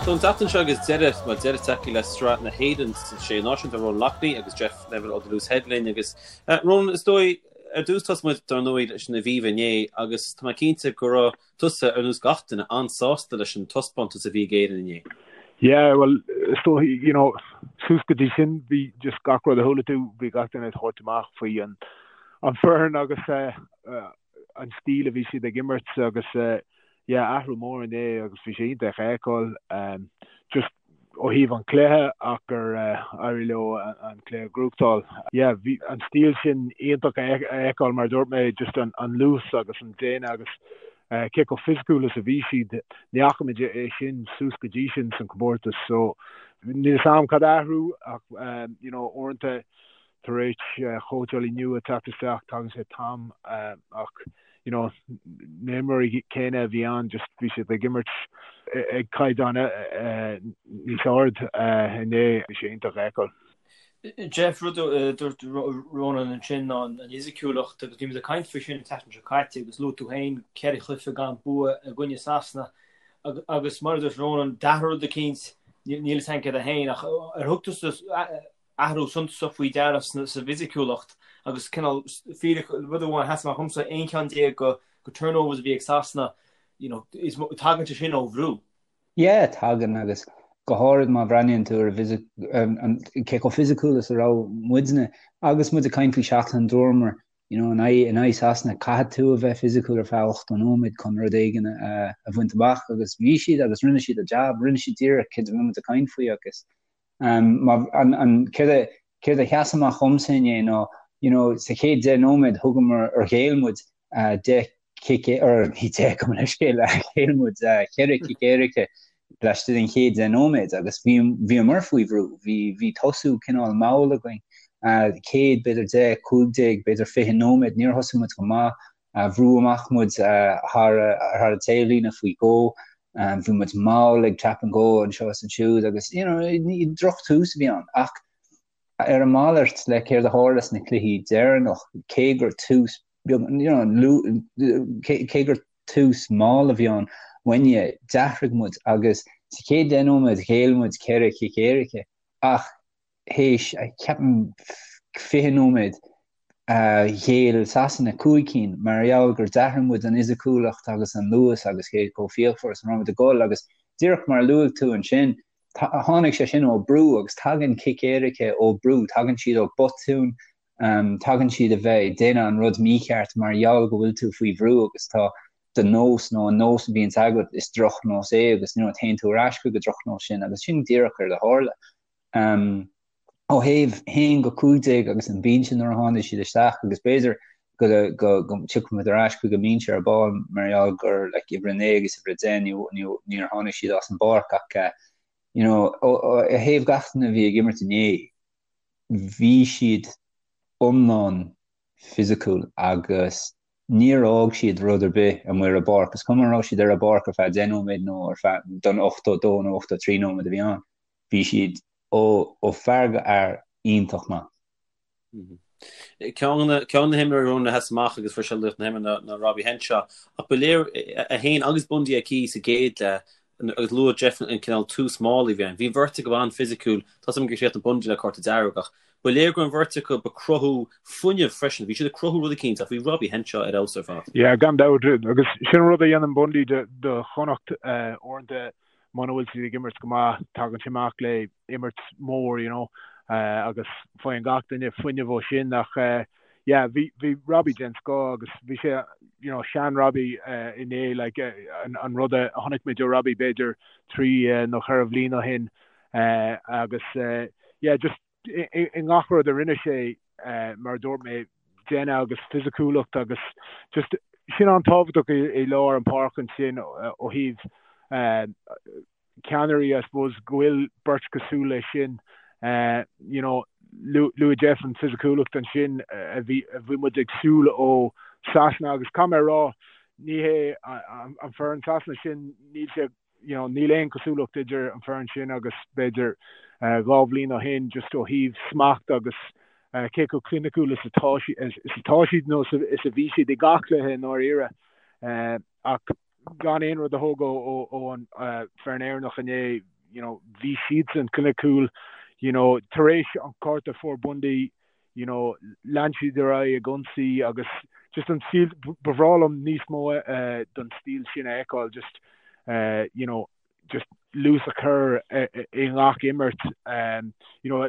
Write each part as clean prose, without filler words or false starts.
So an tseachtain seo agus deireadh, bhuel deireadh tagtha le Sraith na hÉireann sna Sé Náisiún, tá Ronan Loughney agus Jeff Neville ó The Loose Head linn agus Ronan, is dóigh, ar dtús tosóidh muid dar ndóigh leis an Aviva inné agus tá mé cinnte go raibh tusa, ar nós gach duine, an-sásta leis an taispeántas a bhí ag Éirinn inné. Yeah, bhuel, is dóigh, you know, suas go dtí sin bhí just gach rud a chuala tú, bhí gach duine ag tabhairt amach faoi an an foireann agus an stíl a bhí siad ag imirt agus yeah athrú mór inné agus bhí sé iontach a fheiceáil just ó thaobh an chluiche ach gur éirigh leo an cluiche a ghnóthachtáil. Yeah bhí an stíl sin iontach a fheiceáil mar a dúirt mé just an luas agus an déine agus cé chomh fisiciúil is a bhí siad. Ní fhaca muid é sin suas go dtí sin san comórtas so níl a fhios agam cad a athrú ach you know uaireanta Tar éis chóitseálaí nua teacht isteach, tagann sé t-am ach you know na himreoirí céanna a bhí ann just bhí siad ag imirt ag caighdeán níos ard inné, bhí sé iontach a fheiceáil. Jeff, rud a dúirt Ronan ansin ná an fhisiciúlacht agus bhí muid ag caint faoi sin an tseachtain seo caite agus luaigh tú féin ceithre chluiche gan bua i gcoinne Sasana agus mar a dúirt Ronan, d'athraigh rud eicínt, níl a fhios againn céard é féin ach ar thug tusa athrú suntasach faoi deara sa bhfisiciúlacht agus cineál fíric, rud amháin a sheas amach dhomsa, 11 ceann de turnovers a bhí ag Sasana, you know, is tagann sé sin ó bhrú. Yeah, tagann agus go háirid má bhreathnaíonn tú ar an cé chomh fisiciúil is a raibh muidne agus muid ag caint faoi seachtain dúramar, you know, in aghaidh in aghaidh Sasana caithfidh tú a bheith fisiciúil ar feadh 80 nóiméad chun rud éigin a a bhaint amach agus bhí siad agus rinne siad a jab, rinne siad díreach céard a bhí muid ag caint faoi agus Céard a sheas amach dhomsa inné ná, you know, sa chéad 10 nóiméad thugamar, or ghéill muid 10 cic, or ní 10, gabh mo leithscéal, ghéill muid 4 cic éirice laistigh den chéad 10 nóiméad agus bhí, bhíomar faoi bhrú, bhí, bhí tosú cineál mall againn, chéad b'fhéidir 10, 15, b'fhéidir 20 nóiméad, níor thosaigh muid go maith, Bhrúdh amach muid thar an taobhlíne faoi dhó. Bhí muid mall ag tap and go anseo is ansiúd agus you know drochtús a bhí ann. Ach ar an malairt le céard a tharla sna cluichí deireanach, cé gur tús beag, you know, cé gur tús mall a bhí ann uainne, d'athraigh muid agus sa chéad 10 nóiméad ghéill muid 4 chic éirice ach théis, ceapaim, 20 nóiméad, ghéill Sasana 5 cinn mar gheall gur d'athraigh muid an fhisiciúlacht agus an luas agus cé chomh fíochmhar is a raibh muid ag dul agus díreach mar a luaigh tú ansin, tháinig sé sin ó brú agus tagann cic éirice ó brú, tagann siad ó botún, tagann siad a bheith ag déanamh an rud mícheart mar gheall go bhfuil tú faoi bhrú agus tá do nós nó an nós a bhíonns agat, is drochnós é agus you know téann tú ar ais chuig an drochnós sin agus sin díreach céard a tharla. Ó thaobh 1-15 agus an binse nuair a tháinig siad isteach agus b'fhéidir go go dtiocfaidh muid ar ais chuig an mbinse ar ball mar gheall gur like uimhir 9 agus uimhir 10 ní níor tháinig siad as an bpáirc ach you know ó thaobh gach duine a bhí ag imirt inné bhí siad iomlán fisiciúil agus níor fhág siad rud ar bith amuigh ar an bpáirc, is cuma an raibh siad ar an bpáirc ar feadh 10 nóiméad nó ar feadh don 82 nó 83 nóiméad a bhí ann, bhí siad ó ó fear go fhear iontach maith. Ceann de na himreoirí a sheas amach agus fuair sé laoch na himeartha ná Robbie Henshaw ach ba léir é féin agus Bundee Aki sa gcéad leath agus luaigh Jeff an cineál tús mall a bhí ann. Bhí an bheirt acu an-fhisiciúil, tá 's agam gur chríochnaigh Bundee le cárta dearg ach ba léir go raibh an bheirt acu ag cruthú fuinneamh freisin, bhí siad ag cruthú rud eicínt ach bhí Robbie Henshaw ar fheabhas ar fad. Yeah, gan dabht, agus sin an rud a dhéanann Bundee do Chonnacht uaireanta muna bhfuil siad ag imirt go maith, tagann sé amach le imirt mór, you know, agus faigheann gach duine fuinneamh ó sin ach yeah, bhí, bhí Robbie den scoth agus bhí sé, you know, sean Robbie inné, like, an rud a chonaic muid ó Robbie b'fhéidir trí nó cheithre bhliain ó shin agus yeah, just i ngach rud a rinne sé, mar a dúirt mé, déine agus fisiciúlacht agus just sin an-tábhachtach i lár an páirc ansin ó thaobh ceannairí I suppose go bhfuil beirt cosúil leis sin you know luaigh Jeff an fisiciúlacht ansin a bhí a bhí muid ag súil ó Sasana agus caithfidh mé a rá ní hé an foireann Sasana sin níl sé you know níl aon cosúlacht idir an foireann sin agus b'fhéidir 2 bhliain ó shin just ó thaobh smacht agus cé chomh cliniciúil is atá is atá siad nó is a bhí siad i gach cluiche i ndáiríre ach. gan aon rud a thógáil ó an foireann Éireannach inné, you know, bhí siadsan cliniciúil, you know, tar éis an cárta a fuair Bundee, you know, lean siad ar aghaidh ag ionsaí agus just an stíl, ba bhreá liom níos mó den stíl sin a fheiceáil, just, you know, just luas a chur i ngach imirt. You know,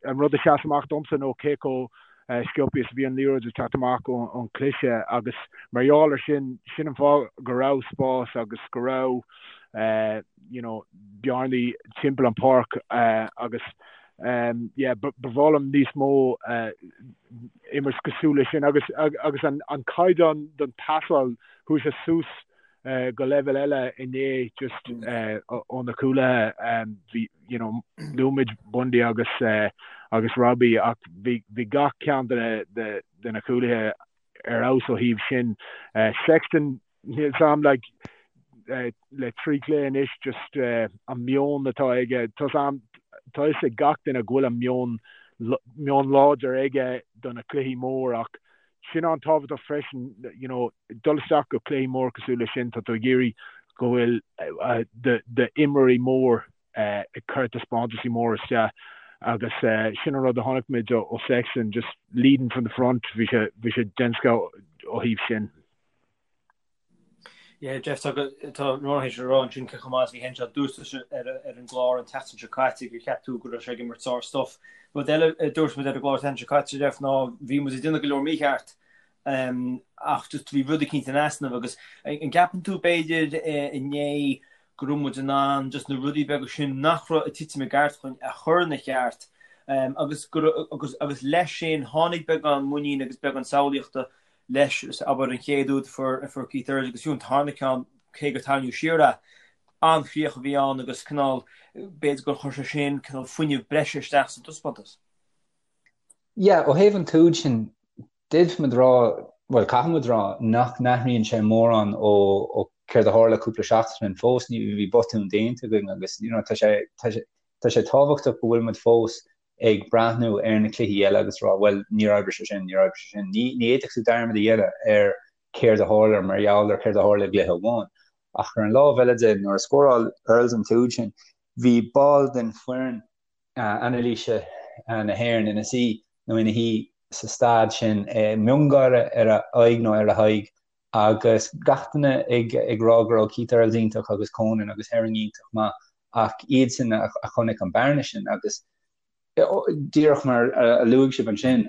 an rud a sheas amach domsa nó cé chomh sciobtha is a bhí an liathróid ag teacht amach ón cliseadh agus mar gheall ar sin, sin an fáth go raibh spás agus go raibh you know, bearnaí timpeall an pháirc agus yeah, ba bhreá liom níos mó imirt cosúil leis sin agus agus an an caighdeán don pasáil chuaigh sé suas go leibhéal eile inné just ó na cúlaithe. Bhí, you know, luaigh muid Bundee agus agus Robbie ach bhí bhí gach ceann de na de de na cúlaithe ar fheabhas ó thaobh sin. Sexton, níl 's a'm like le 3 chluiche anois just an meon atá aige, tá 's a'm tá fhios ag gach duine go bhfuil an meon meon láidir aige do na cluichí mór ach sin an-tábhachtach freisin, you know, dul isteach go cluichí mór cosúil leis sin, tá tú ag iarraidh go bhfuil d'imreoirí mór ag cur taispeántaisí mór isteach agus sin an rud a chonaic muid ó Sexton, just leading from the front, bhí sé, bhí sé den scoth ó thaobh sin. Yeah, Jeff, tá tá Ronan théis a rá ansin cé chomh maith is a bhí Henshaw. Dúirt tusa ar ar an gclár an tseachtain seo caite gur cheap tú go raibh sé ag imirt sár stuff. Rud eile a dúirt muid ar an gclár an tseachtain seo caite, Jeff, ná bhí muid ag déanamh go leor mícheart ach just bhí rud eicínt in easnamh agus an gceapann tú b'fhéidir inné go raibh muid in ann just na rudaí beaga sin nach raibh ag titim i gceart chugainn a chur ina cheart agus go agus agus leis sin tháinig beagán muinín agus beagán samhlaíochta leis, abair, an chéad úd a fuair a fuair Keith Earls agus fiú an tarna ceann, cé gur tarraingíodh siar é, an-chríoch a bhí ann agus cineál, b'fhéidir gur chuir sé sin cineál fuinneamh breise isteach sa dtaispeántas. Yeah, ó thaobh an t-úd sin, d'fhéadfadh muid rá, bhuel, caithfidh muid rá, nach n-athraíonn sé mórán ó ó céard a tharla cúpla seachtain ó shin fós, ní bhí botún déanta againn agus, you know, tá sé, tá sé, tá sé tábhachtach go bhfuil muid fós ag breathnú ar na cluichí eile agus rá, bhuel, níor oibrigh sé sin, níor oibrigh sé sin. Ní ní fhéadfadh tú dearmad a dhéanamh ar céard a tharla mar gheall ar céard a tharla i gcluiche amháin. Ach ar an lámh eile de, nuair a scóráil Earls an t-úd sin, bhí ball den foireann anailíse na hÉireann ina suí nó ina shuí sa staid sin, miongháire ar a aghaidh nó ar a haghaidh agus gach duine ag ag rá go raibh Keith Earls iontach agus Conan agus Herring iontach maith ach iadsan a chonaic an bearna sin agus díreach mar a luaigh sibh ansin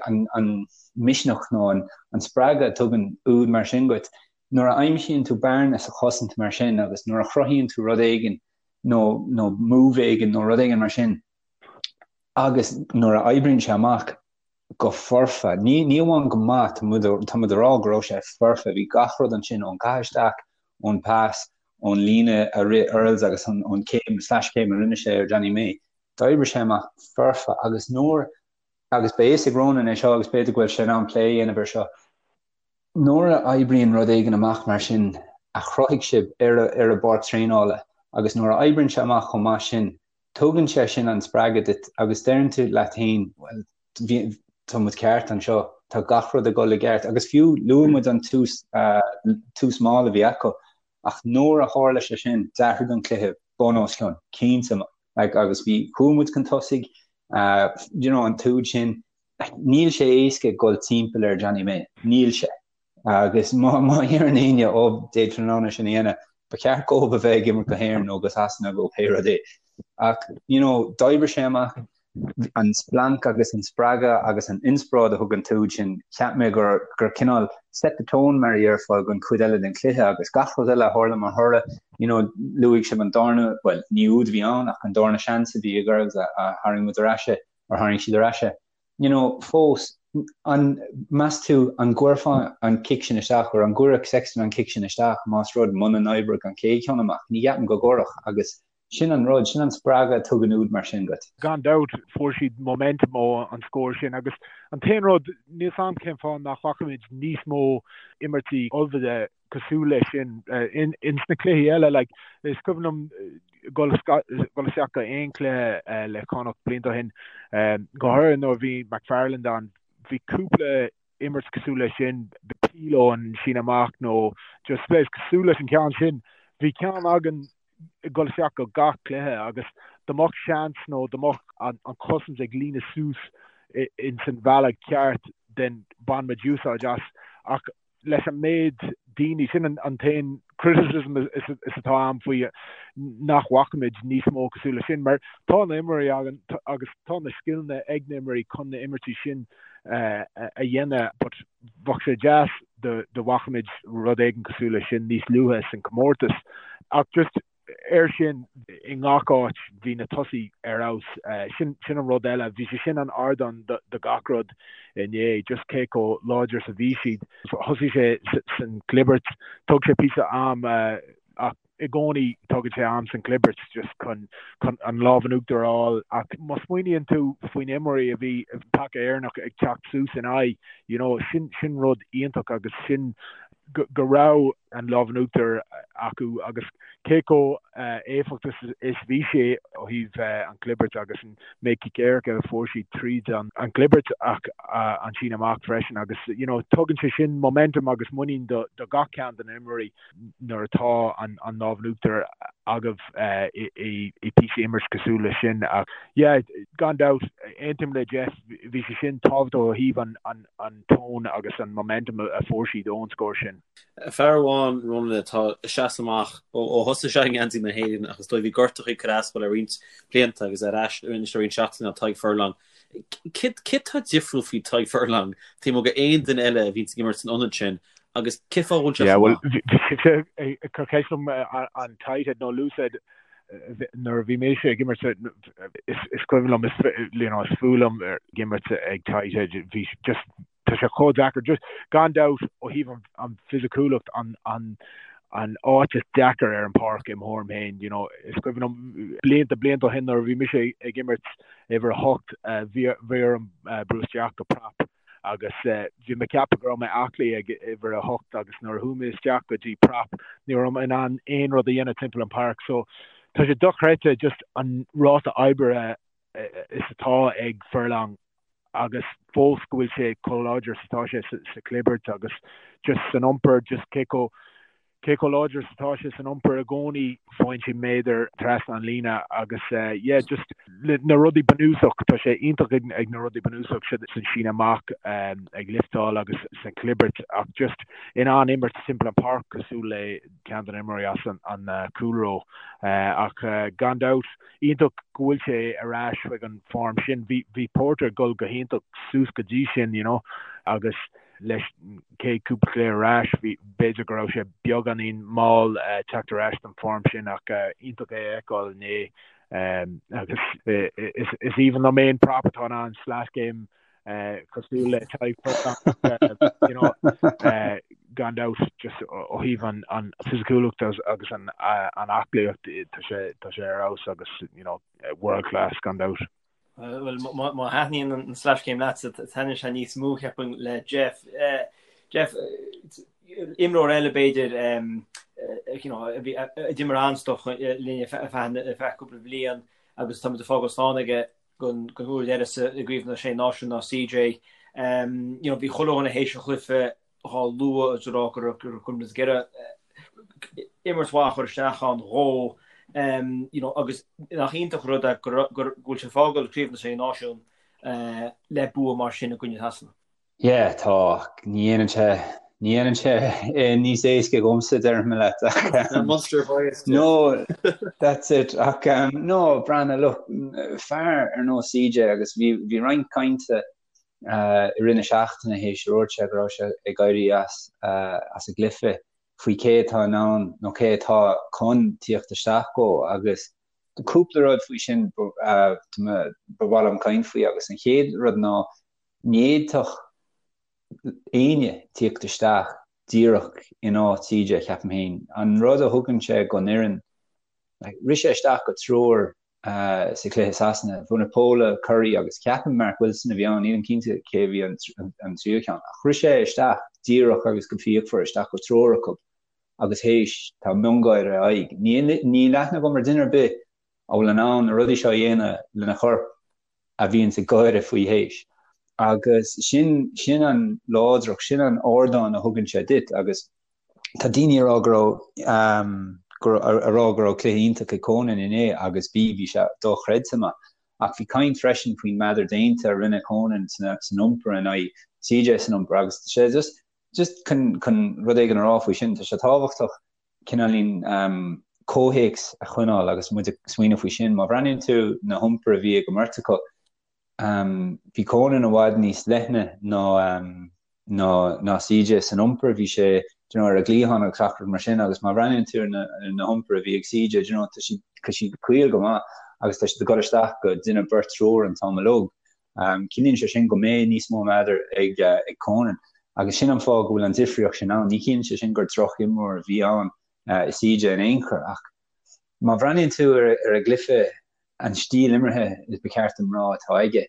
an an misneach nó an an spreagadh a tugann úd mar sin duit nuair a aimsíonn tú bearna sa chosaint mar sin agus nuair a chruthaíonn tú rud éigin nó nó move éigin nó rud éigin mar sin agus nuair a oibríonn sé amach go foirfe. Ní ní amháin go maith, tá muid tá muid a rá go raibh sé foirfe, bhí gach rud ansin ón caitheamh isteach, ón pas, ón líne a rith Earls agus an ón céim slash céim a rinne sé ar Johnny May. D'oibrigh sé amach foirfe agus nuair agus beidh fhios ag Ronan é seo agus b'fhéidir go bhfuil sé in ann plé a dhéanamh ar seo. Nuair a oibríonn rud éigin amach mar sin a chruthaigh sibh ar ar an bpáirc traenála agus nuair a oibríonn sé amach chomh maith sin, tugann sé sin an spreagadh duit agus deireann tú leat féin, bhuel, bhí, tá muid ceart anseo, tá gach rud ag dul i gceart agus fiú luaigh muid an tús, tús mall a bhí acu ach nuair a tharla sé sin, d'athraigh an cluiche bun os cionn, cinnte, like, agus bhí, chuaigh muid chun tosaigh, you know, an t-úd sin, Níl sé éasca dul timpeall ar Johnny May. Níl sé. Agus má má dheireann éinne ó d'fhéadfainn in ann é sin a dhéanamh, ba cheart dhóibh a bheith ag imirt go hÉirinn nó go Sasana nó pé rud é. Ach, you know, d'oibrigh sé amach an splanc agus an spreagadh agus an inspioráid a thug an t-úd sin, cheap mé gur gur cineál set the tone mar a dhéarfá don chuid eile den chluiche agus gach rud eile a tharla mar thoradh, you know, luaigh sibh an darna, bhuel, ní úd a bhí ann ach an darna seans a bhí ag Earls a a tharraing muid ar ais é. ar tharraing siad ar ais é. You know, fós, an, meas tú, an gcuirfeá an cic sin isteach, or an gcuirfeadh Sexton an cic sin isteach más rud muna n-oibreodh an chéad cheann amach? Ní cheapaim go gcuirfeadh, agus sin an rud, sin an spreagadh a tugann úd mar sin duit. Gan dabht, fuair siad momentum ó an scór sin agus an t-aon rud, níl 's a'm cén fáth nach bhfaca muid níos mó imirtí ullmhaithe cosúil leis sin ins na cluichí eile. Like, is cuimhin liom dul isteach go aon chluiche le Connacht blianta ó shin, go háirithe nuair a bhí McFarland ann, bhí cúpla imirt cosúil leis sin. peel ón síneadh amach nó just spléis cosúil leis an ceann sin. Bhí ceann againn ag dul isteach go gach cluiche agus dá mbeadh seans nó dá mbeadh an chosaint ag líonadh suas ins an bhealach ceart then bhain muid úsáid as ach leis an méid daoine, sin an t-aon criticism is atá a'm faoi nach bhfaca muid níos mó cosúil leis sin mar tá na imreoirí againn agus tá na scileanna ag na imreoirí chun na imirtí sin a dhéanamh but bheadh sé deas dá bhfaca muid rud éigin cosúil leis sin níos luaithe san comórtas ach just air sin i ngach áit bhí na tosaí ar fheabhas. Sin sin an rud eile, bhí sé sin an ardán do gach rud inné, just cé chomh láidir is a bhí siad. Thosaigh sé san gclibirt, thóg sé píosa am ach i gcónaí tógann sé am san gclibirt just chun chun an lámh in uachtar a fháil ach má smaoiníonn tú faoin imreoirí a bhí paca Éireannach ag teacht suas in aghaidh, you know, sin sin rud iontach agus sin go raibh an lámh in uachtar acu agus cé chomh éifeachtach is bhí sé ó thaobh an chlibirt agus an méid cic éirice a fuair siad tríd an gclibirt ach an síneadh amach freisin agus you know tugann sé sin momentum agus muinín do gach ceann de na imreoirí nuair atá an lámh in uachtar agaibh i píosa imirt cosúil leis sin ach yeah gan dabht aontaím le Jeff bhí sé sin tábhachtach ó thaobh an an tone agus an momentum a fuair siad ón scór sin. Fear amháin, Ronan, atá ag seasamh amach ó thosaigh sé i ngeansaí na hÉireann ach is dóigh bhí gortachaí ag cur as dó le roinnt blianta agus ar ais anois le roinnt seachtainí ná Tadhg Furlong. Céard atá difriúil faoi Tadhg Furlong taobh amuigh d'aon duine eile a bhíonns ag imirt san ionad sin agus cén fáth a bhfuil sé chomh maith? Bhuel, bhí sé ag cur ceist liom an tight head nó loose head nuair a bhí mise ag imirt is cuimhin liom is you know is fuath liom ag imirt ag tight head bhí just tá sé chomh deacair just gan dabht ó thaobh an, an fisiciúlacht an, an, an áit is deacair ar an páirc i mo thuairim féin you know is cuimhin liom blianta blianta ó shin nuair a bhí mise ag imirt uimhir a hocht bhí bhí orm brú isteach go prap agus bhí mé ag ceapadh go raibh mé aclaí ag uimhir a hocht agus nuair a chuaigh mé isteach go dtí prap ní raibh mé in ann aon rud a dhéanamh timpeall an páirc so tá sé dochreidte just an ráta oibre is atá ag Furlong agus fós go bhfuil sé chomh láidir is atá sé sa chlibirt agus just san iompar just cé chomh Cé chomh láidir is atá sé san iompar i gcónaí, faigheann sé méadar trasna an líne agus yeah just na rudaí bunúsach, tá sé iontach ag na rudaí bunúsach san síneadh amach, ag lifteáil agus san chlibirt ach just in ann imirt timpeall an páirc cosúil le ceann de na imreoirí as an cúlró. Ach gan dabht, iontach go bhfuil sé ar ais chuig an form sin. Bhí Porter ag dul go hiontach suas go dtí sin, you know, agus leis an chéad cúpla cluiche ar ais, bhí, b'fhéidir go raibh sé beagáinín mall teacht ar ais don form sin ach iontach é a fheiceáil inné agus is aoibhinn liom aon prop atá in ann slash game cosúil le Tadhg Furlong you know gan dabht just ó thaobh an an fisiciúlacht agus an an aclaíocht tá sé tá sé ar fheabhas agus you know world class gan dabht. Bhuel, má thaitníonn an slash game leatsa, taitníonn sé níos mó, cheapfainn, le Jeff. Jeff, imreoir eile b'fhéidir, you know, a bhí, a d'imir an-stuif linn ar feadh cúpla bliain agus táimid ag fágáil slán aige don uair dheireadh sa i gCraobh na Sé Náisiún ná CJ. You know, bhí chuile dhuine théis an chluiche dhá lua agus ag rá go raibh go raibh muid ag iarraidh imirt mhaith a chur isteach ann dhó you know agus nach iontach an rud é go go bhfuil sé ag fágáil Craobh na Sé Náisiún le bua mar sin i gcoinne Shasana. Yeah, tá. Ní dhéanann sé, ní dhéanann sé é níos éasca dhomsa, déarfaidh mé leat, ach Munster bias. No, that's it. Ach no, breathnaigh, look, fear ar nós CJ agus bhí bhí roinnt cainte i rith na seachtaine théis a dúirt sé go raibh sé ag éirí as as an gcluiche faoi cé atá in ann nó cé atá chun tíocht isteach dhó agus cúpla rud faoi sin ba mhaith liom caint faoi agus an chéad rud ná ní fhéadfadh éinne tíocht isteach díreach in áit CJ ceapaim féin. An rud a thugann sé gon fhoireann, rith sé isteach go triúr sa chluiche Sasana. Vunipola, Curry agus ceapaim Mark Wilson a bhí ann, nílim cinnte cé a bhí an tríú ceann. Ach rith sé isteach díreach agus go fíochmhar isteach go triúr acu agus théis tá miongháire ar a aghaidh. Níl aithne agam ar duine ar bith a bhfuil in ann na rudaí seo a dhéanamh lena chorp a bhíonns ag gáire faoi théis. Agus sin, sin an láidreacht, sin an ardán a thugann sé duit agus tá daoine ag rá go raibh, ag rá go raibh cluiche iontach ag Conan inné agus bhí, bhí sé dochreidte maith. Ach bhí caint freisin faoin meadar déanta a rinne Conan san iompar in aghaidh CJ san iompar agus tá sé just, just chun, chun rud éigin a rá faoi sin, tá sé tábhachtach cineáilín comhthéacs a choinneáil agus muid ag smaoineamh faoi sin. Má bhreathnaíonn tú na hiompair a bhí ag an mbeirt acu, bhí Conan i bhfad níos leithne ná ná ná CJ san iompar, bhí sé you know, ar an gcliathán agus gach rud mar sin agus má bhreathnaíonn tú ar na na hiompair a bhí ag CJ, you know, tá siad tá siad caol go maith agus tá siad ag dul isteach go duine, beirt, triúr an t-am uilig. Ciallaíonn sé sin go mbeidh níos mó meadair ag ag Conan agus sin an fáth go bhfuil an difríocht sin ann. Ní chiallaíonn sé sin gur droch-imreoir a bhí ann i CJ in aon chor ach má bhreathnaíonn tú ar ar an gcluiche, an stíl imeartha is ba cheart dom rá atá aige,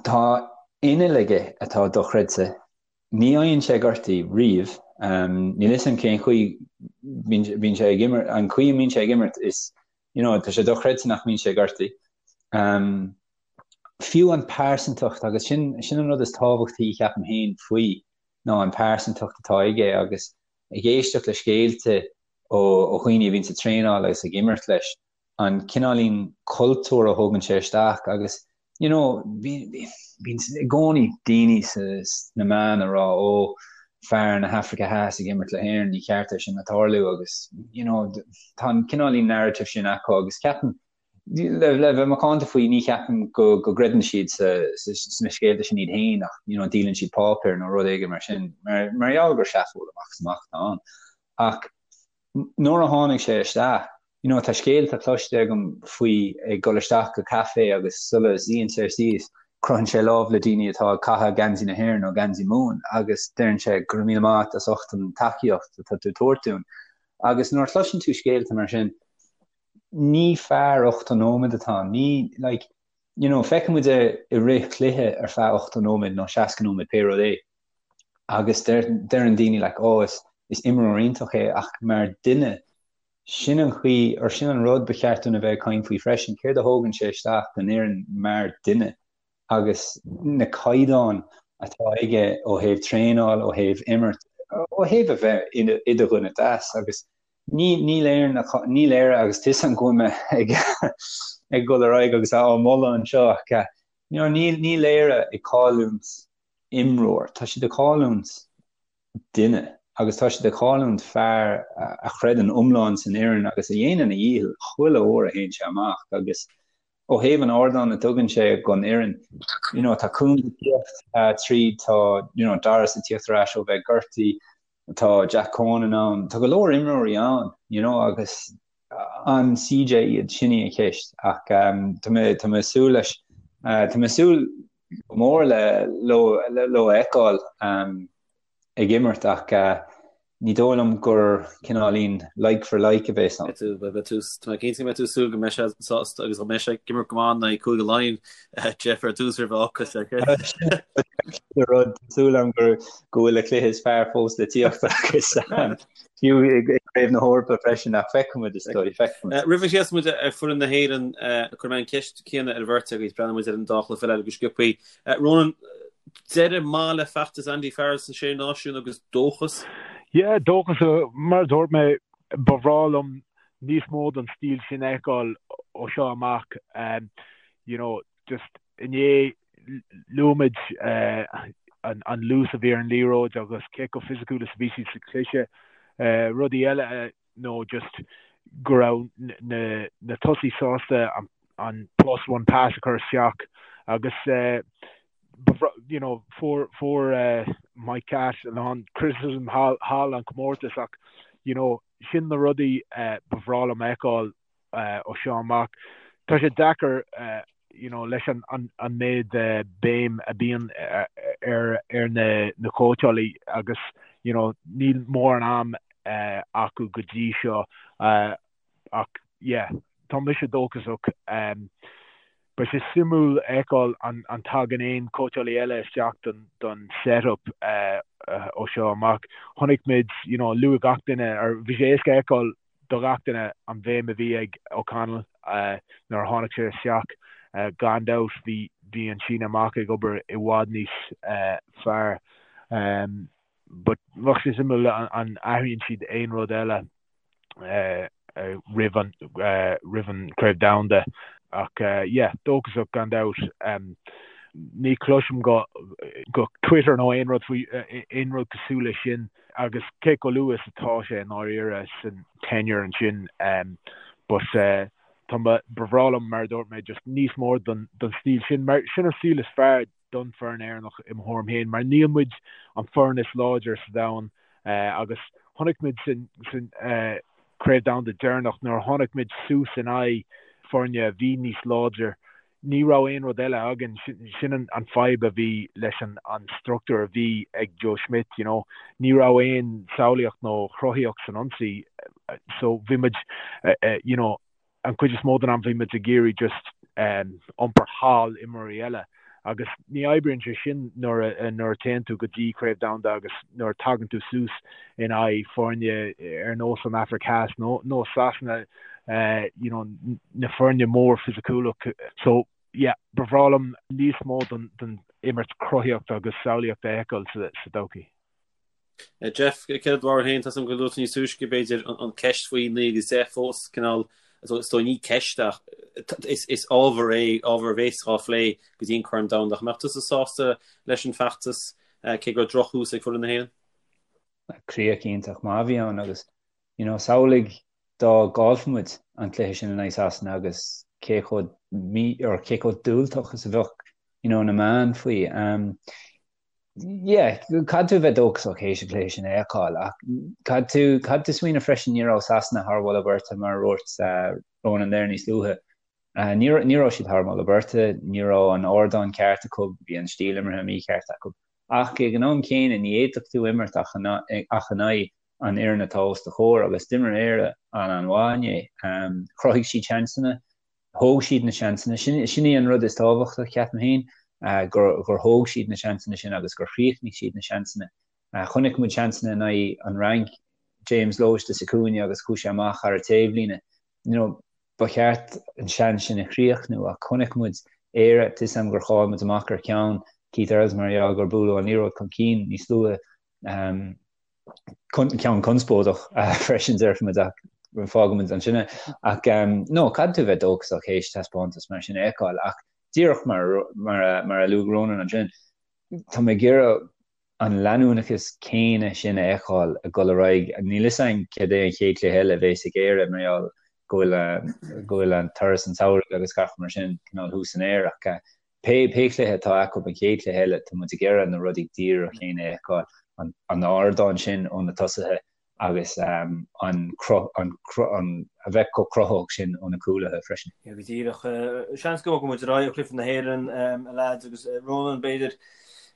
tá inneall aige atá dochreidte. Ní fhaigheann sé gortaithe riamh. Níl 'fhios a'm cén chaoi bíonn sé ag imirt, an chaoi a mbíonn sé ag imirt is you know, tá sé dochreidte nach mbíonn sé gortaithe. Um, fiú an pearsantacht agus sin, sin an rud is tábhachtaí ceapaim féin faoi ná an pearsantacht atá aige agus ag éisteacht le scéalta ó, ó dhaoine a bhíonn sa traenáil agus ag imirt leis, an cineáilín cultúr a thógann sé isteach agus you know, bíonn i gcónaí daoine sna meáin ag rá ó fear na hAfraice Theas ag imirt le hÉirinn, ní ceart é sin a tarlú agus you know, tá an cineáilín narrative sin acu agus ceapaim le, le bheith macánta faoi ní cheapaim go, go gcreideann siad sa, sa, sna scéalta sin iad féin ach you know, díolann siad páipéar nó rud éigin mar sin mar, mar gheall gur seafóid amach is amach atá ann. Ach nuair a tháinig sé isteach, you know, tá scéalta cloiste agam faoi ag dul isteach go caife agus sula suíonn sé síos, croitheann sé lámh le daoine atá ag caitheamh geansaí na hÉireann nó geansaí Mumhan agus deireann sé go raibh míle maith as ucht an tacaíocht atá tú ag tabhairt dúinn. Agus nuair a chloiseann tú scéalta mar sin, ní fear 80 nóiméad atá ann, ní, like, you know, feiceann muid é i rith cluiche ar feadh 80 nóiméad nó 60 nóiméad, pé rud é. Agus deireann daoine like oh is is imreoir iontach é ach mar duine, sin an chaoi or sin an rud ba cheart dúinn a bheith ag caint faoi freisin, céard a thógann sé isteach don fhoireann mar duine agus na caighdeáin atá aige ó thaobh traenáil, ó thaobh imirt, ó thaobh a bheith i do dhuine deas agus ní níl Éire níl Éire agus tá 'fhios a'm go bhfuil mé ag ag dul ar aghaidh agus á moladh anseo ach you know níl níl Éire ag cailliúint imreoir. Tá siad ag cailliúint duine agus tá siad ag cailliúint fear a chreideann iomlán san fhoireann agus a dhéanann a dhícheall chuile uair a théann sé amach agus ó thaobh an ardáin a dtugann sé don fhoireann, you know, tá Coombes ag tíocht tríd, tá you know, Doris ag tíocht ar ais ó bheith gortaithe, tá Jack Conan ann, tá go leor imreoirí ann, you know, agus an CJ iad, sin í an cheist ach tá mé tá mé ag súil leis tá mé ag súil go mór le leo leo a fheiceáil ag imirt ach ní dóigh liom gur cineáilín like for like a bheas ann. Beidh tú tá mé cinnte go mbeidh tú ag súil go mbeidh sé sásta agus go mbeidh sé ag imirt go maith in aghaidh Cúige Laighean Jeff ar dtús roimh a fhocas Rud súil agam go go bhfuil a chluiche is fearr fós le tíocht agus fiú i gCraobh na hEorpa freisin ach feicfimid is dóigh, feicfimid. Roimh a sheas muid ar foireann na hÉireann, cuirfidh mé an cheist chéanna ar an bheirt agaibh, breathnóidh muid ar an dá chluiche eile go sciobtha. Ronan, deireadh maith le feachtas Andy Farrell sna Sé Náisiún agus dóchas? Yeah, dóchas, mar a dúirt mé, ba bhreá liom níos mó den stíl sin a fheiceáil ó seo amach. You know, just inné luaigh muid an luas a bhí ar an liathróid agus cé chomh fisiciúil is a bhí siad sa chluiche. Rudaí eile nó just go raibh na tosaithe sásta an plus one pass a chur isteach agus you know fuair fuair Mike Catt a lán criticism thall an comórtas ach you know sin na rudaí ba bhreá liom a fheiceáil ó seo amach. Tá sé deacair you know leis an an méid béim a bíonn ar ar na na cóitseálaí agus you know níl mórán am acu go dtí seo ach yeah tá mise dóchasach. Beidh sé suimiúil a fheiceáil an an tagann aon cóitseálaí eile isteach don don set-up ó seo amach. Chonaic muid you know luaigh gach duine ar bhí sé éasca a fheiceáil do ghach duine an bhéim a bhí ag O'Connell nuair a tháinig sé isteach. Gan dabht bhí bhí an síneadh amach ag obair i bhfad níos fearr. But bheadh sé suimiúil an athraíonn siad aon rud eile roimh an roimh an Craobh Domhanda ach yeah, dóchasach gan dabht. Ní chloisim go go Twitter nó aon rud faoi aon rud cosúil leis sin agus cé chomh luath is atá sé i ndáiríre san tenure ansin but tá ba bhreá liom mar a dúirt mé just níos mó den den stíl sin mar sin an stíl is fearr don foireann Éireannach i mo thuairim féin mar níl muid an foireann is láidir sa domhan agus chonaic muid san Craobh Domhanda deireanach nuair a tháinig muid suas in aghaidh foirne a bhí níos láidir ní raibh aon rud eile againn. Sin an fadhb a bhí leis an struchtúr a bhí ag Joe Schmidt, you know. Ní raibh aon samhlaíocht nó chruthaíocht san ionsaí so bhí muid you know an chuid is mó den am bhí muid ag iarraidh just iompar thall imreoirí eile agus ní oibríonn sé sin nuair a nuair a téann tú go dtí Craobh Domhanda agus nuair a tagann tú suas in aghaidh foirne ar nós an Afraic Theas nó nó Sasana you know na foirne mór fisiciúlach so yeah ba bhreá liom níos mó den den imirt cruthaíochta agus samhlaíochta a fheiceáil sa sa todhchaí. Jeff, céard é do bharúil féin, tá 's agam gur luaigh tú níos túisce, b'fhéidir, an ceist faoi 9 agus 10 fós, cineál, is dóigh ní ceist ach is ábhar é, ábhar a bhéas á phlé go dtí an Corn Domhanda. Ach an mbeadh tusa sásta leis an feachtas, cé go raibh drochthús ag foireann na hÉireann? Críoch iontach maith a bhí ann agus, you know, samhlaigh dá gcaillfeadh muid an cluiche sin in aghaidh Sasana agus cé chomh mí, or cé chomh diúltach is a bheadh, you know, na meáin faoi. Um, Yeah, caithfidh tú a bheith dóchasach théis an cluiche sin a fheiceáil ach caithfidh tú, caithfidh tú smaoineamh freisin ní raibh Sasana thar mholadh beirte mar a dúirt Ronan there níos luaithe. Ní, ní raibh siad thar mholadh beirte, ní raibh an ardán ceart acu, bhí an stíl imeartha mícheart acu. Ach ag an am céanna ní fhéadfadh tú imirt ach in aghaidh an fhoireann atá os do chomhair agus d'imir Éire an-an-mhaith inné. Chruthaigh siad seansanna, Thóg siad na seansanna. Sin, sin í an rud is tábhachtaí, ceapaim féin, gur, gur thóg siad na seansanna sin agus gur chríochnaigh siad na seansanna. Chonaic muid seansanna in aghaidh an Fhrainc, James Lowe istigh sa cúinne agus chuaigh sé amach thar an taobhlíne. You know, ba cheart an seans sin a chríochnú ach chonaic muid Éire, tá 'fhios a'm gur chaill muid amach ar cheann Keith Earls mar gheall gur buaileadh an liathróid chun cinn níos luaithe. Ceann conspóideach freisin déarfaimid ach fágfaimid ansin é. Ach no, caithfidh tú a bheith dóchasach théis taispeántas mar sin a fheiceáil ach díreach mar mar a luaigh Ronan ansin, tá mé ag iarraidh an leanúnachas céanna sin a fheiceáil ag dul ar aghaidh. Níl fhios a'inn céard é an chéad chluiche eile a bhéas ag Éire mar gheall go bhfuil go bhfuil an turas an tsamhraidh agus gach mar sin cineál thuas san aer ach Pé cluiche atá acu, an chéad chluiche eile, tá muid ag iarraidh na rudaí díreach céanna a fheiceáil, an ardán sin ó na tosaithe agus an a bheith chomh cruthaitheach sin ó na cúlaithe freisin. Yeah, go díreach. Seans go mbogfaidh muid ar aghaidh ó chluiche na hÉireann, a leaids, agus Ronan, b'fhéidir,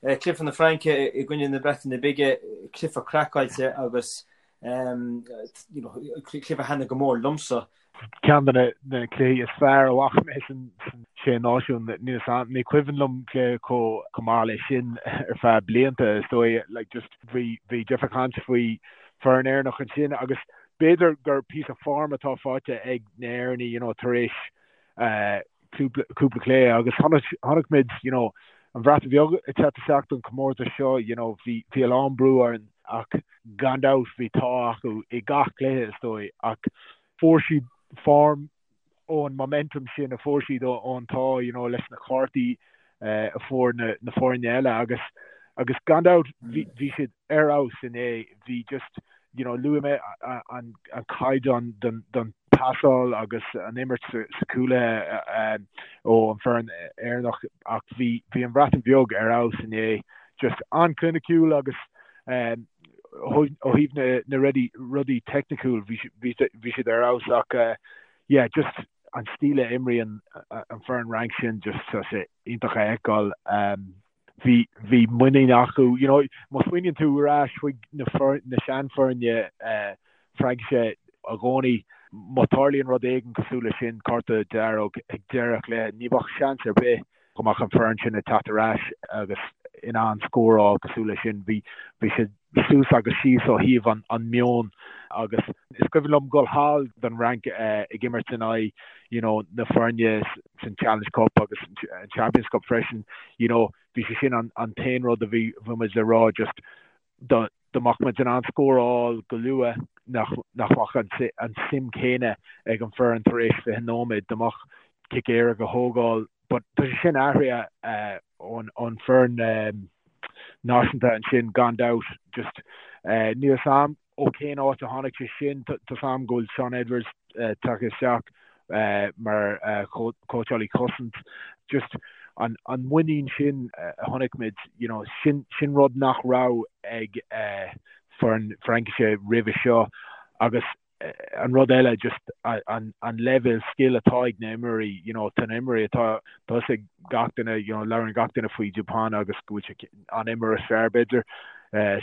cluiche na Fraince i gcoinne na Breataine Bige, cluiche craiceáilte agus cluiche a thaitnigh go mór liomsa. Ceann de na cluichí is fearr a bhfaca mé san Sé Náisiún. Níl 'fhios a'm, ní cuimhin liom cluiche chomh maith leis sin ar feadh blianta, is dóigh. Like just bhí bhí Jeff ag caint faoi foireann Éireannach ansin agus b'fhéidir gur píosa form atá faighte ag na hÉireannaigh, you know, tar éis cúpla cúpla cluiche agus chonaic chonaic muid, you know, an Bhreatain Bheag ag teacht isteach don chomórtas seo, you know, bhí bhí a lán brú orainn ach gan dabht bhí t-ádh acu i gach cluiche is dóigh ach fuair siad form ón momentum sin a fuair siad ón t-ádh you know leis na cártaí a fuair na na foirne eile agus agus gan dabht bhí bhí siad ar fheabhas inné bhí just you know luaigh mé an an caighdeán don don pasáil agus an imirt sa sa cúlaithe ó an foireann Éireannach ach bhí bhí an Bhreatain Bheag ar fheabhas inné just an-chliniciúil agus ó thaobh na rudaí teicniciúil bhí siad ar fheabhas ach yeah just an stíl a imríonn an foireann Fhrainc sin just tá sé iontach a fheiceáil. Bhí bhí muinín acu you know má smaoiníonn tú ar ais chuig na na seanfhoirne Fraincise i gcónaí má tarlaíonn rud éigin cosúil leis sin, cárta dearg ag deireadh cluiche, ní bheadh seans ar bith go mbeadh an foireann sin ag teacht ar ais agus in ann scóráil cosúil leis sin. Bhí bhí siad suas agus síos ó thaobh an an meon. Agus is cuimhin liom dul thall don Fhrainc ag imirt in aghaidh you know na foirne san Challenge Cup agus an Champions Cup freisin, you know bhí sé sin an an t-aon rud a bhí bhí muid le rá just dá dá mbeadh muid in ann scóráil go luath nach nach mbeadh an an suim céanna ag an foireann tar éis 20 nóiméad, dá mbeadh cic éirice a thógáil but tá sé sin athraithe ón ón foireann náisiúnta ansin gan dabht just níl 'fhios a'm ó cén áit a tháinig sé sin tá 'fhios a'm go bhfuil Shaun Edwards tagtha isteach mar chóitseálaí cosaint just an an muinín sin a chonaic muid you know sin sin rud nach raibh ag foireann Fraincise roimhe seo agus an rud eile just an an leibhéal scil atá ag na imreoirí, you know, tá na imreoirí atá tá 'fhios ag gach duine, you know, labhrann gach duine faoi Dupont agus go bhfuil sé an imreoir is fearr b'fhéidir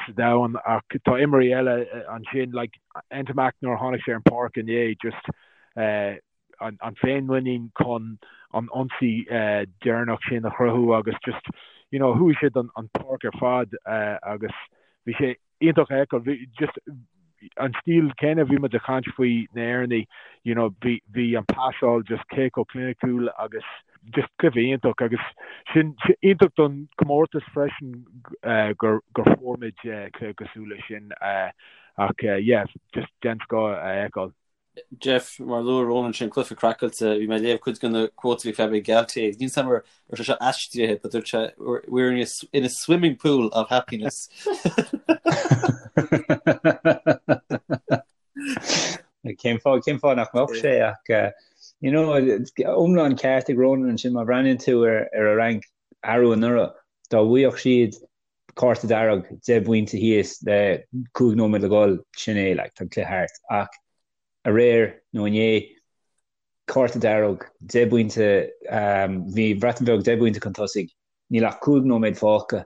sa domhan ach tá imreoirí eile ansin like Ntamack nuair a tháinig sé ar an páirc inné just an an féinmhuinín chun an ionsaí deireanach sin a chruthú agus just you know chuaigh siad an an páirc ar fad agus bhí sé iontach a fheiceáil. Bhí just an stíl céanna a bhí muid ag caint faoi na hÉireannaigh, you know, bhí bhí an pasáil just cé chomh cliniciúil agus just cluiche iontach agus sin iontach don comórtas freisin gur gur fuair muid cluiche cosúil leis sin ach yeah, just den scoth a fheiceáil. Jeff, mar a luaigh Ronan sin cluiche craiceáilte, bhí mé ag léamh cuid de na quotes a bhí Fabien Galthié agus níl 'fhios a'm an raibh sé seo aistrithe but dúirt sé we're in a, in a swimming pool of happiness. Cén fáth cén fáth nach mbeadh sé ach eh, you know, iomlán ceart ag Ronan ansin má bhreathnaíonn tú ar ar an Fhrainc arú anuraidh dá bhfaigheadh siad cárta dearg, 10 bpointe thíos le 5 nóiméad le dhul, sin é, like, tá an cluiche thart. Ach aréir nó inné, cárta dearg, 10 bpointe, bhí an Bhreatain Bheag 10 bpointe chun tosaigh, níl ach 5 nóiméad fágtha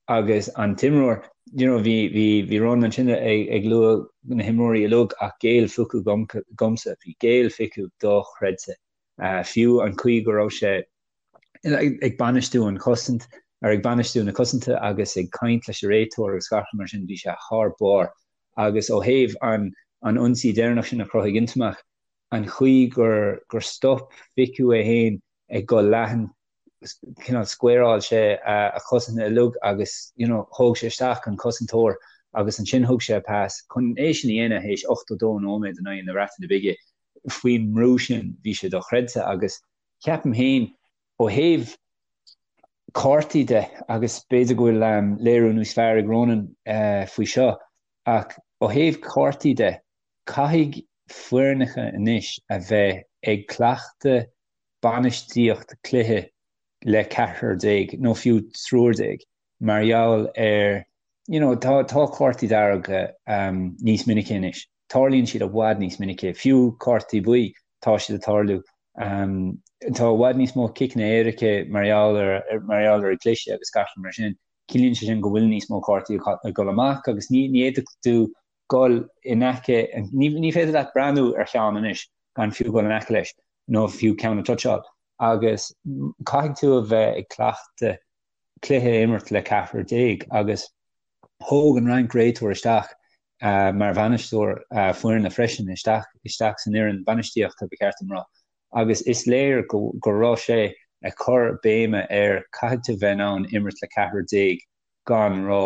agus an t-imreoir, you know, bhí, bhí, bhí Ronan ansin ag, ag lua na himreoirí uilig ach Gaël Fickou dhomsa, bhí Gaël Fickou dochreidte. Fiú an chaoi go raibh sé ag bainistiú an chosaint, ar ag bainistiú na cosanta agus ag caint leis an réiteoir agus gach rud mar sin, bhí sé thar barr. Agus ó thaobh an an ionsaí deireanach sin a chruthaigh Ntamack, an chaoi gur gur stop Fickou é féin ag dul leathan, cineál squareáil sé a chosaint uilig agus you know thóg sé isteach an cosantóir agus ansin thug sé pas. Chun é sin a dhéanamh théis 82 nóiméad in aghaidh na Breataine Bige faoin mbrú sin, bhí sé dochreidte agus Ceapaim féin, ó thaobh cártaí de, agus b'fhéidir go bhfuil léiriú níos fearr ag Ronan faoi seo, ach ó thaobh cártaí de, caithfidh foirneacha anois a bheith ag cleachtadh bainistíocht cluiche le ceathrar déag nó fiú triúr déag mar gheall ar you know tá tá cártaí dearga níos minice anois. Tarlaíonn siad i bhfad níos minice, fiú cártaí buí, tá siad ag tarlú. Tá i bhfad níos mó ciceanna éirice mar gheall ar mar gheall ar an gcliseadh agus gach rud mar sin. Ciallaíonn sé sin go bhfuil níos mó cártaí ag dul amach agus ní ní fhéadfadh tú dul in aice, ní ní féidir leat breathnú ar cheann anois gan fiú dul in aice leis nó fiú ceann a toucháil agus caithfidh tú a bheith ag cleachtadh cluiche a imirt le ceathrar déag agus thóg an Fhrainc réiteoir isteach mar bhainisteoir foirne freisin isteach isteach san fhoireann bainistíochta ba cheart dom rá agus is léir go go raibh sé ag cur béime ar caithfidh tú bheith in ann imirt le ceathrar déag gan rá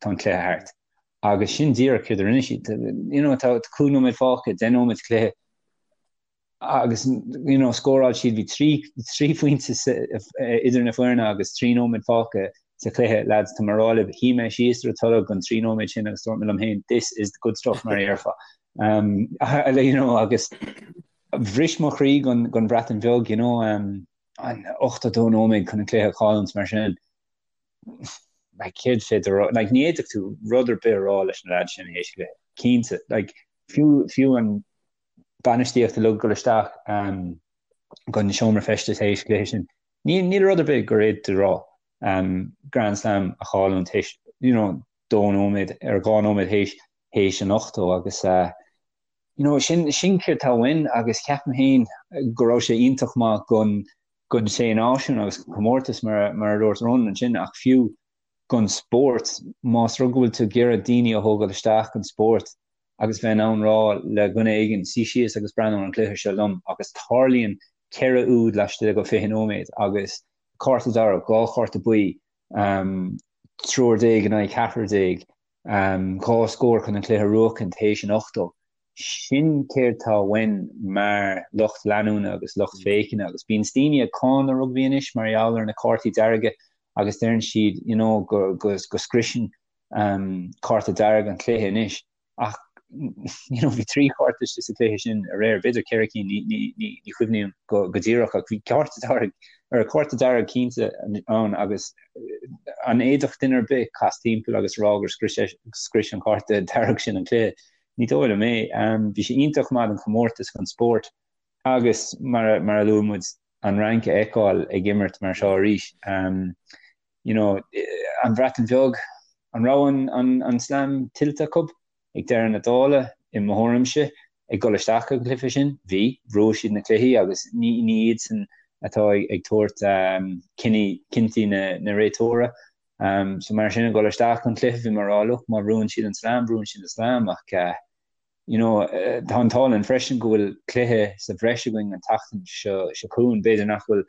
tá an cluiche thart agus sin díreach céard a rinne siad you know tá 5 nóiméad fágtha 10 nóiméad cluiche agus you know scóráil siad bhí 3 phointe idir na foirne agus 3 nóiméad fágtha sa chluiche lads tá mé ag rá libh shuigh mé síos ar an tolg an 3 nóiméad sin agus dúirt mé liom féin this is the good stuff mar a dhéarfá um, you know agus bhris mo chroí don don Bhreatain Bheag you know um, an 82 nóiméad chun an cluiche a chailliúint mar sin like céard féidir rá like ní fhéadfadh tú rud ar bith a rá leis na lads sin théis cluiche cinnte like fiú fiú an bainistíocht uilig dul isteach gon seomra feistis théis cluiche sin. Ní níl rud ar bith gur fhéadfadh tú rá. Grand Slam a chailliúint théis you know dó nóiméad ar dhá nóiméad théis théis an 80 agus you know sin sin céard tá uainn agus ceapaim féin go raibh sé iontach maith gon gon sé náisiún agus comórtas mar mar a dúirt Ronan ansin ach fiú gon spórt más rud go bhfuil tú ag iarraidh daoine a thógáil isteach gon spórt. agus bheith in ann rá le dhuine éigin, suigh síos agus breathnú ar an gcluiche seo liom agus tarlaíonn 4 úd laistigh de 20 nóiméad agus cárta dearg, 2 chárta buí, triúr déag in aghaidh ceathrar déag, 2 scór chun an cluiche a bhuachan théis an 80. Sin céard tá uainn mar lucht leanúna agus lucht féachana agus bíonn daoine ag cáineadh rugbaí anois mar gheall ar na cártaí dearga agus deireann siad you know go go scriosann cárta dearg an cluiche anois ach you know bhí 3 chárta sa chluiche sin aréir, b'fhéidir 4 cinn, ní ní chuimhním go go díreach ach bhí cárta dearg ar cárta dearg cinnte ann agus an bhféadfadh duine ar bith casadh timpeall agus rá gur scrios scrios an cárta dearg sin an cluiche. Ní dóigh liom é. Bhí sé iontach maith don chomórtas, don spórt agus mar mar a luaigh muid an Fhrainc a fheiceáil ag imirt mar seo arís. You know, an Bhreatain Bheag, an raibh an an an slam tuillte acu ag deireadh na dála, i mo thuairimse, ag dul isteach an cluiche sin? Bhí. Bhuaigh siad na cluichí agus ní ní iadsan atá ag ag tabhairt cinní cinntí na na réiteora. So mar sin ag dul isteach an cluiche bhí mé ag rá look má bhuann siad an slam buann siad an slam ach you know tá an t-ádh linn freisin go bhfuil cluiche sa bhreis againn an tseachtain seo seo chugainn b'fhéidir nach bhfuil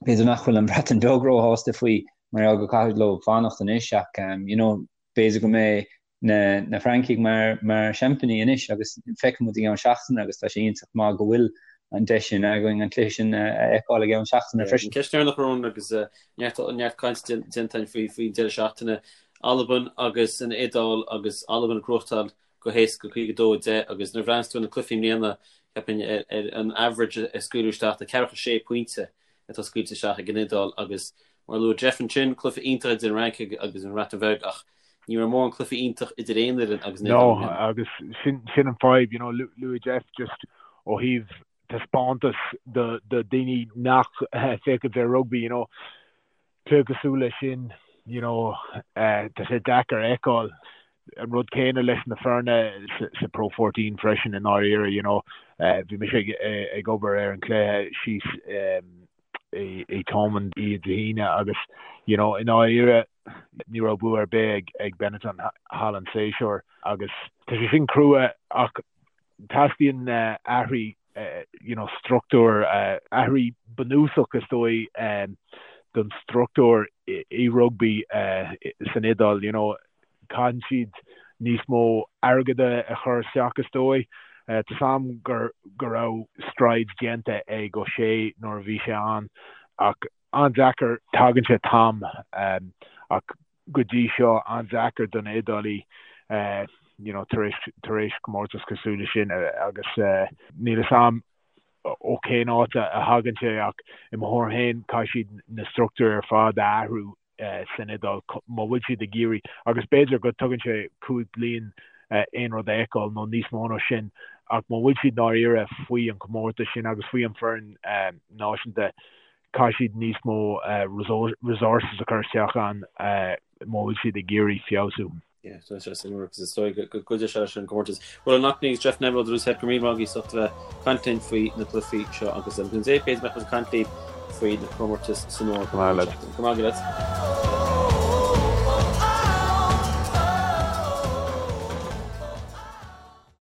b'fhéidir nach bhfuil an Bhreatain Bheag róshásta faoi mar gheall go caithfidh leo fanacht anois ach you know b'fhéidir go mbeidh na na Francaigh mar mar seaimpíní anois agus feicfidh muid i gceann seachtaine agus tá sé iontach maith go bhfuil an deis sin againn an cluiche sin a fheiceáil i gceann seachtaine freisin. Ceist dheireanach Ronan agus neart neart caint déanta againn faoi faoin deireadh seachtaine. Albain agus an Iodáil agus Albain ag gnóthachtáil go héasca 52 10 agus nuair a bhreathnaíos tú ar na cluichí i mbliana ceapaim ar an average a scaoileadh isteach tá ceathracha sé pointe atá scaoilte isteach ag an Iodáil agus mar a luaigh Jeff ansin, cluiche iontach idir an Fhrainc agus an Bhreatain Bheag ach ní raibh mórán cluiche iontach idir aon fhoireann agus an Iodáil. No, agus sin sin an fadhb, you know, luaigh Jeff just ó thaobh taispeántas do do daoine nach féachann ar rugbaí, you know, cluiche cosúil leis sin, you know, tá sé deacair a fheiceáil. An rud céanna leis na foirne sa Pro 14 freisin i ndáiríre, you know, bhí mise ag obair ar an chluiche síos i Thomond Dé hAoine agus, you know, i ndáiríre ní raibh bua ar bith ag Benetton thall an séasúr agus tá sé sin crua ach teastaíonn athraí you know, struchtúr, athraí bunúsach is dóigh don struchtúr i rugbaí san Iodáil, you know, caitheann siad níos mó airgead a chur isteach is dóigh. Tá 's a'm go raibh strides déanta ag O'Shea nuair a bhí sé ann ach an-deacair, tagann sé t-am ach go dtí seo an-deacair do na Iodálaigh you know tar éis tar éis comórtas cosúil leis sin agus níl 'fhios a'm ó cén áit a thagann sé ach i mo thuairim féin caithfidh siad na struchtúir ar fad a athrú san Iodáil má bhfuil siad ag iarraidh agus b'fhéidir go dtugann sé 5 bliain aon rud a fheiceáil nó níos mó ná sin ach má bhfuil siad ndáiríre faoi an comórtas sin agus faoi an foireann náisiúnta caithfidh siad níos mó resources a chur isteach ann má bhfuil siad ag iarraidh feabhsú. Yeah, tá sé suimiúil agus is dóigh go gcuideoidh sé leis an gcomórtas. Ronan Loughnane agus Jeff Neville ó The Loose Head go raibh míle maith agaibh as ucht a bheith ag caint linn faoi na cluichí seo agus an Dé b'fhéidir go mbeidh muid ag caint libh faoi na comórtais san Eoraip. Go maith leat.